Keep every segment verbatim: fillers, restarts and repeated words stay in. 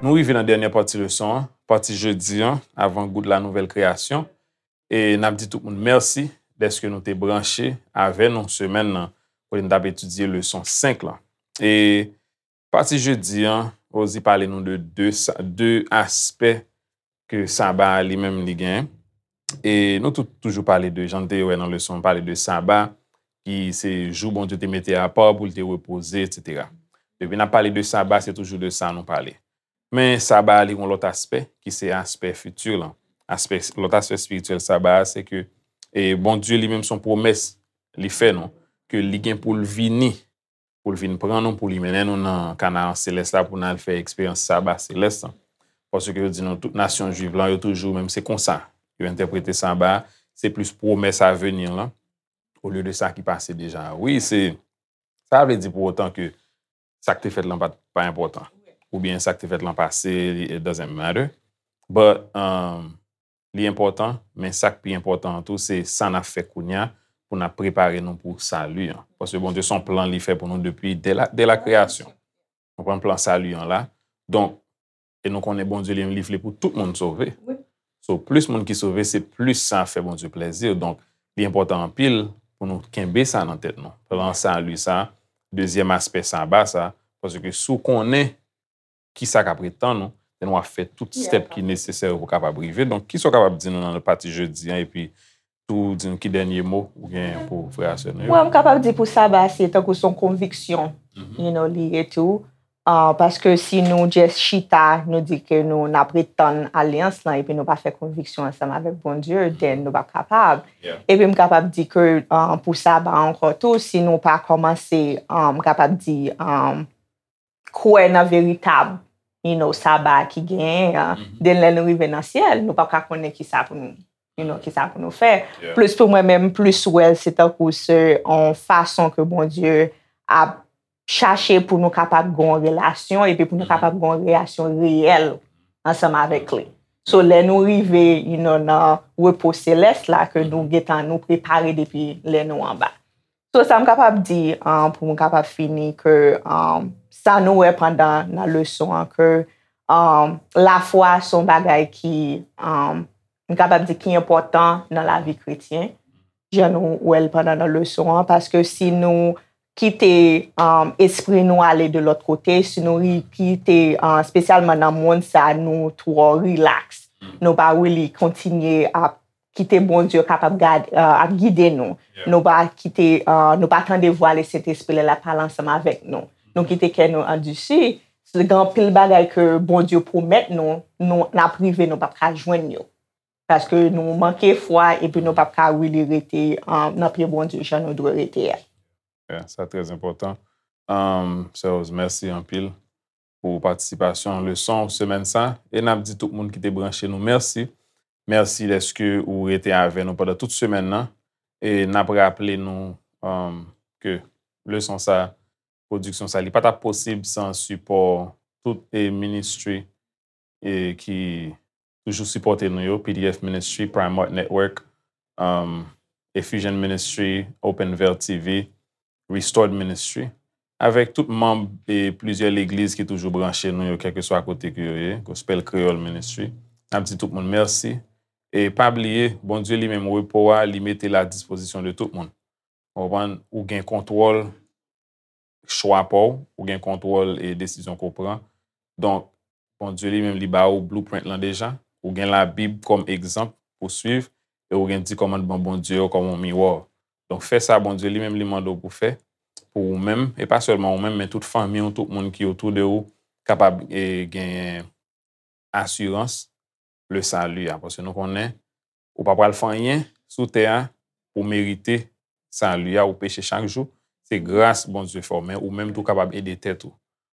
Nou rive nan dènyè pati leson an, pati jedi an, avan gout la nouvèl kreyasyon. E n ap di tout moun mèsi dèske nou te branche avè nou semèn nan, kote n t ap etidye leson senk lan. E pati jedi an, Rosie pale nou de de, sa- de aspè ke saba a li menm li genyen. E nou tou- toujou pale de, jan n te wè nan leson, pale de saba, ki se jou Bondye te mete apa pou l te repoze, etsetera. Depi n ap pale de saba, se toujou de sa nou pale. Men saba a li gon lòt aspè, ki se aspè fiti lan. Aspè, lòt aspè espirityèl saba a, se ke e Bondye li menm se yon pwomès li fè nou, ke li gen pou l vini, pou l vin pran nou, pou li mennen nou nan Kanaran selès la, pou n al fè eksperyans saba selès lan. Paske yo di nou, tout nasyon jwiv lan, yo toujou, menm se konsa yo entèprete saba a, se plis pwomès avni lan, olye de sa ki pase deja. Wi, se, sa vle di pou otan ke sa k te fèt lan pa, pa enpòtan. Oubyen sa k te fèt lan pase, li- it doesn't matter. But, um, li enpòtan, men sa k pi enpòtan an tou, se sa n ap fè kounye a pou n ap prepare nou pou sali an. Paske Bondye se yon plan li fè pou nou depi dè la, dè la kreyasyon. Konprann plan sali an la. Donk, e nou konnen Bondye li menm li vle pou tout moun sove. So, plis moun ki sove, se plis sa fè Bondye plèzi. Donk, li enpòtan anpil pou nou kenbe sa nan tèt nou. Plan sali sa, dezyèm aspè saba sa, paske si w konnen ki sa k ap ret tann ou, then w ap fè tout step ki nesesè pou w kapab rive. Donk, kisa w kapab di nou nan pati jedi an, epi tou di nou ki dènye mo ou gen pou frè a sè nou yo? Mwen, m kapab di pou saba, se tankou se yon konviksyon, you know, li ye tou. Ah, paske si nou just chita, nou di ke nou, n ap ret tann alyans lan, epi nou pa fè konviksyon ansanm avèk Bondye, then nou p ap kapab. Epi m kapab di ke, ah, pou saba ankò tou, si nou pa kòmanse, ah, m kapab di, ah, kwè nan veritab, you know, saba ki genyen an, then lè nou rive nan syèl, nou p ap ka konnen kisa pou nou, you know, kisa pou nou fè. Plis pou mwen menm, plis wè l, se tankou se yon fason ke Bondye ap chache pou nou kapab gen yon relasyon, epi pou nou kapab gen yon relasyon reyèl ansanm avèk li. So, lè nou rive, you know, nan repo selès la, ke nou gentan nou prepare depi lè nou anba. So, sa m kapab di, ah, pou m kapab fini, ke, ah, sa nou wè pandan nan leson an, ke, ah, lafwa se yon bagay ki, ah, m kapab di ki enpòtan nan lavi kretyen, jan nou wè l pandan nan leson an, paske si nou kite, ah, espri nou ale de lòt kote, si nou ri- kite, ah, espesyalman nan mond sa, nou twò rilaks, nou pa really kontinye ap kite Bondye kapab gad, ah, ap gide nou. Nou pa kite, ah, nou pa tande vwa Lesentespri lè l ap pale ansanm avèk nou. Nou kite kè nou andisi. Se gen anpil bagay ke Bondye pwomèt nou, nou, n ap rive, nou p ap ka jwenn yo. Paske nou manke fwa, epi nou p ap ka really rete, ah, nan pye Bondye jan nou dwe rete a. Yeah, sa trè enpòtan. Um, Sè Rose, mèsi anpil pou patisipasyon leson semèn sa. E n ap di tout moun ki te branche nou mèsi. Mèsi dèske ou rete avè nou pandan tout semèn nan. E n ap raple nou, um, ke leson sa, pwodiksyon sa, li pa t ap posib san sipò tout e ministri e ki toujou sipòte nou yo, P D F Ministry, Prime Art Network, um, Effusion Ministry, Open Veil T V, Restored Ministry, avèk tout manm e plizyè legliz ki toujou branche nou yo, kèlkeswa kote ke yo ye, Gospel Creole Ministry. N ap di tout moun mèsi. E pa bliye, Bondye li menm, repo a, li mete l a dispozisyon de tout moun. Ou konprann? Ou gen kontwòl chwa pa w, ou gen kontwòl e desizyon ke w pran. Donk, Bondye li menm, li ba ou blueprint lan deja. Ou gen Labib kòm egzanp pou swiv, e ou gen di kòmandman Bondye yo kòm yon miwa. Donk, fè sa Bondye li menm, li mande w pou fè, pou ou menm, e pa sèlman ou menm, men tout fanmi w, tout moun ki otou de ou, kapab, e, genyen asirans le sali a. Paske nou konnen, ou pa pral fè anyen sou tè a pou merite sali a, ou peche chak jou. Se gras Bondye fè w, men ou menm tou kapab ede tèt ou.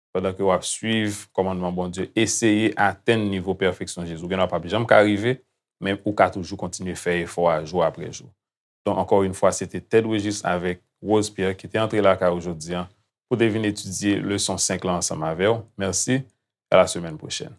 Pandan ke w ap swiv kòmandman Bondye, eseye atenn nivo pèfeksyon Jezi. Ou gen dwa p ap janm ka rive, men ou ka toujou kontinye fè efò a jou apre jou. Donk, ankò yon fwa, se te Ted Wegis avèk Rose Pierre ki te antre lakay ou jodi a pou te vin etidye leson senk lan ansanm avè w. Mèsi, à la semaine prochaine.